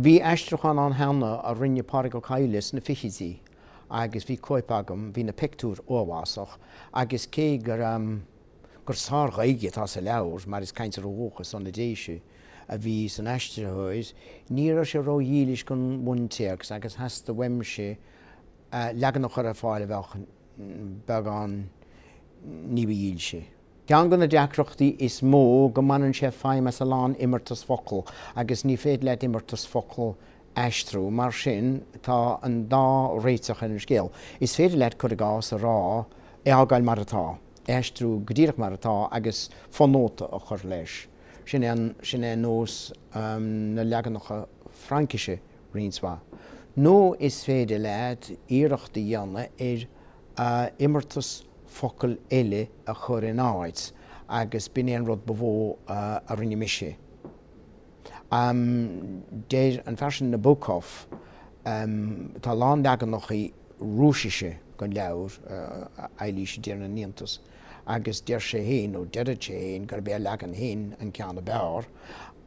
Bhí aistriúchán ann cheana a rinne Pádraig Ó Cadhla sna fichidí agus bhí cóip agam, bhí na pictiúir uafásach agus cé gur gur sár-Ghaeilge atá sa leabhar, mar is cainteoir ó dhúchas ó na Déise a bhí san aistritheoir, ní raibh sé ró-dhílis don bhuntéacs agus theastaigh uaimse leagan a chur ar fáil a bheadh beagán ní ba dhílse. Ceann de na deacrachtaí is mó go mbaineann sé feidhm as a lán imeartas focal agus ní féidir leat imeartas focal aistriú. Mar sin, tá an dá réiteach ar an scéal. Is féidir leat, cur i gcás, a rá, é a fhágáil mar atá, é a aistriú go díreach mar atá agus fonóta a chur leis. Sin é an, sin é nós na leaganacha Fraincise roinnt mhaith. Nó is féidir leat iarracht a dhéanamh ar imeartas focal eile a chur in áit agus b'in é an rud ba mhó a rinne mise. Deir an fear sin Nabokov, tá a lán leaganacha Rúisise den leabhar, Eilís i dTír na nIontas, agus deir sé féin, nó deireadh sé féin, gurb é a leagan féin an ceann ab fhearr,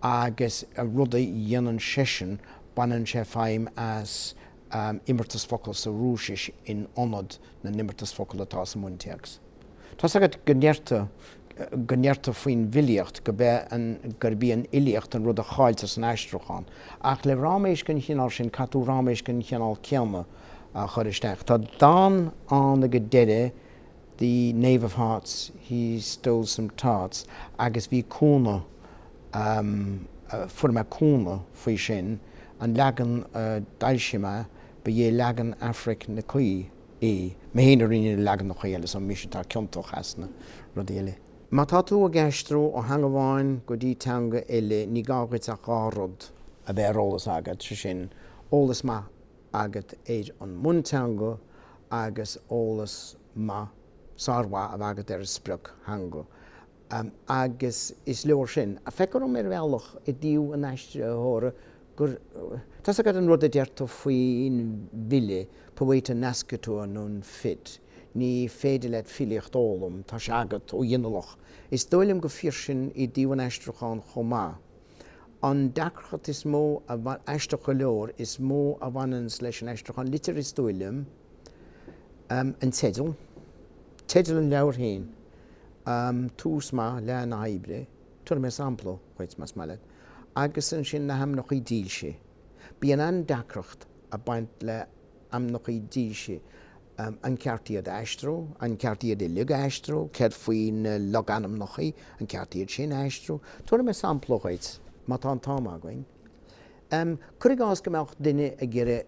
agus an rud a dhéanann seisean, baineann sé feidhm as imeartas focal sa Rúisis in ionad na n-imeartas focal atá sa mbuntéacs. Tá's agat go ndeirtear, go ndeirtear faoin bhfilíocht go be an, gurb í an fhilíocht an rud a chailltear san aistriúchán. Ach le ráiméis den chineál sin, caithfidh tú ráiméis den chineál céanna a chur isteach. Tá dán ann ag an deireadh, The Knave of Hearts, He Stole Some Tarts, agus bhí cúnamh, fuair mé cúnamh faoi sin, an leagan a d'fhoilsigh mé, ba é leagan Aifric Nic Aoidh é. Mé féin a rinne na leaganacha eile, so mise atá ciontach as na rudaí eile. Má tá tú ag aistriú ó theanga amháin go dtí teanga eile, ní gá dhuit ach 2 rud a bheith ar eolas agat, sé sin, eolas maith agat ar an mbunteanga agus eolas maith, sármhaith a bheith agat ar an sprioctheanga. Agus is leor sin. Feictear dom ar bhealach i dtaobh an aistritheora gur, tá's agat an rud a deirtear faoin bhfile, poeta nascitur non fit, ní féidir leat filíocht a fhoghlaim, tá sé agat ó ghinealach. Is dóigh liom gur fíor sin i dtaobh an aistriúcháin chomh maith. An deacracht is mó a, aisteach go leor, is mó a bhaineanns leis an aistriúchán liteartha is dóigh liom, an teideal, teideal an leabhair féin, tús maith le na hoibre, tabharfaidh mé sampla dhuit más maith leat, agus ansin na hainmneacha dílse. Bíonn an-deacracht ag baint le hainmneacha dílse, an ceart iad a aistriú, an ceart iad uilig a aistriú, céard faoi na logainmneacha, an ceart iad sin a aistriú? Tabharfaidh mé sampla dhuit, má tá an t-am againn. Cuir i gcás go mbeadh duine ag iarraidh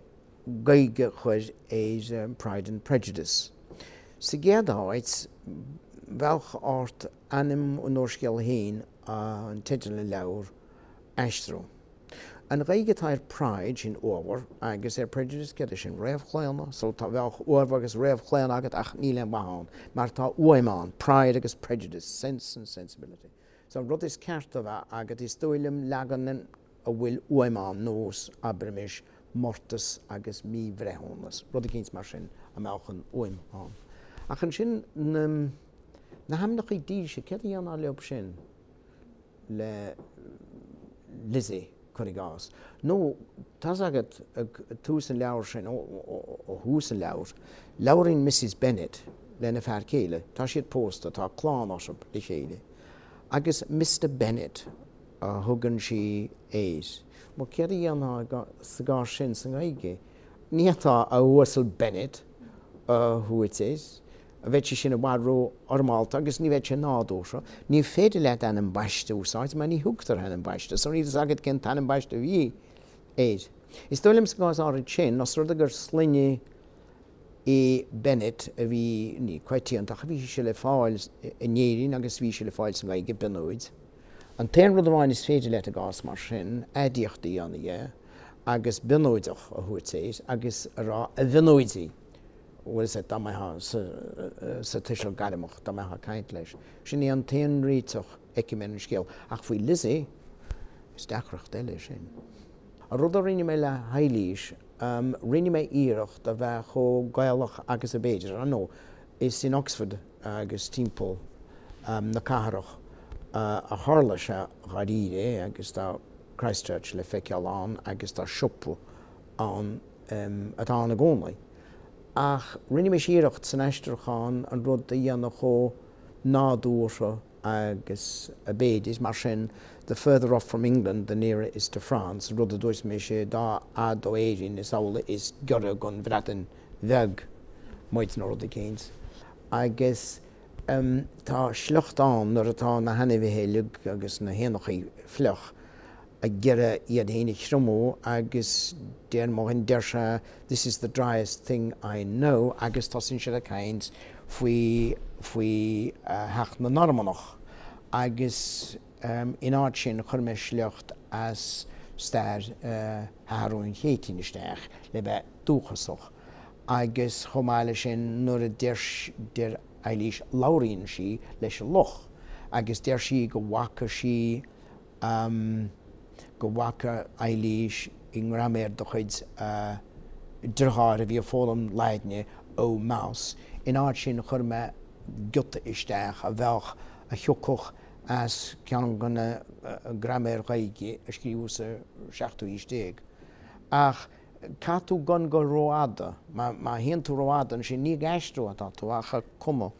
Gaeilge a chur ar Pride and Prejudice. Sa gcéad áit, bheadh ort ainm an úrscéil féin, an teideal an leabhair, aistriú. An Ghaeilge atá ar Pride, sin uabhar, agus ar Prejudice, céard é sin, réamhchlaonadh? So tá, bheadh uabhar agus réamhchlaonadh agat ach níl aon mhaith ann, mar tá uaim ann, pride agus prejudice, sense and sensibility. So an rud is ceart a bheith agat, is dóigh liom, leagan a bhfuil uaim ann, nós, abraimis, mórtas agus míbhreithiúnas, rud eicínt mar sin a mbeadh an uaim ann. Ach ansin, na, na hainmneacha dílse, céard a dhéanfá leob sin? le Lizzie, cuir i gcás. Nó, tá's agat, ag tús an leabhair sin, ó thús an leabhair, labhraíonn Mrs Bennet lena fear céile, tá siad pósta, tá clann orthu le chéile, agus Mister Bennet a thugann sí air. Bhuel, céard a dhéanfá sa gcás sin sa nGaeilge? Ní fhéadfá a Uasail Bennet a thabhairt air. Bheadh sé sin i bhfad ró-fhoirmeálta agus ní bheadh sé nádúrtha. Ní féidir leat ainm baiste a úsáid mar ní thugtar ainm baiste, so níl fhios agat cén t-ainm baiste a bhí air. Is dóigh liom sa gcás áirid sin, os rud é gur sloinne é Bennett a bhí, ní coitianta, ach bhí sé le fáil in Éirinn agus bhí sé le fáil sa nGaeilge, Bionóid. An t-aon rud amháin is féidir leat i gcás mar sin, aidiacht a dhéanamh dhe agus Bionóideach a thabhairt air agus a rá a Bhionóidigh. bhfuil fhios agat, dá mbeifeá sa tuiseal gairmeach, dá mbeifeá ag caint leis. Sin é an t-aon réiteach a fheicim ar an scéal. Ach faoi Lizzie, is deacracht eile é sin. An rud a rinne mé le hEilís, rinne mé iarracht a bheith chomh Gaelach agus ab fhéidir. Ar ndóigh, is in Oxford agus timpeall na cathrach a tharla sé dháiríre agus tá. Christchurch le feiceáil ann agus tá siopa ann atá ann i gcónaí. Ach rinne mise iarracht san aistriúchán an rud a dhéanamh chomh nádúrtha agus ab fhéidir, mar sin, the further off from England the nearer is to France, rud a dúirt mise, dá fhad ó Éirinn is amhlaidh is giorra don Bhreatain Bheag muid nó rud eicínt. Agus tá sliocht ann nuair atá na hainmhithe uilig agus na héanachaí fliuch ag iarraidh iad féin a thriomú agus deir mo dhuine, deir sé this is the driest thing I know agus tosaíonn siad ag caint faoi, faoi theacht na Normannach agus in áit sin chuir mé sliocht as stair Sheathrúin Chéitinn isteach le bheith dúchasach agus chomh maith leis sin nuair a deir, deir Eilís, labhraíonn sí leis an luch agus deir sí go bhfaca sí go bhfaca Eilís i ngraiméar de chuid a deartháir a bhí ag foghlaim Laidne, O mouse. In áit sin chuir mé giota isteach a bheadh, a thiocfadh as ceann de na graiméir Ghaeilge a scríobhadh sa seachtú haois déag. Ach caithfidh tú gan dul rófhada. Má théann tú rófhada ansin ní ag aistriú atá tú ach ag cumadh.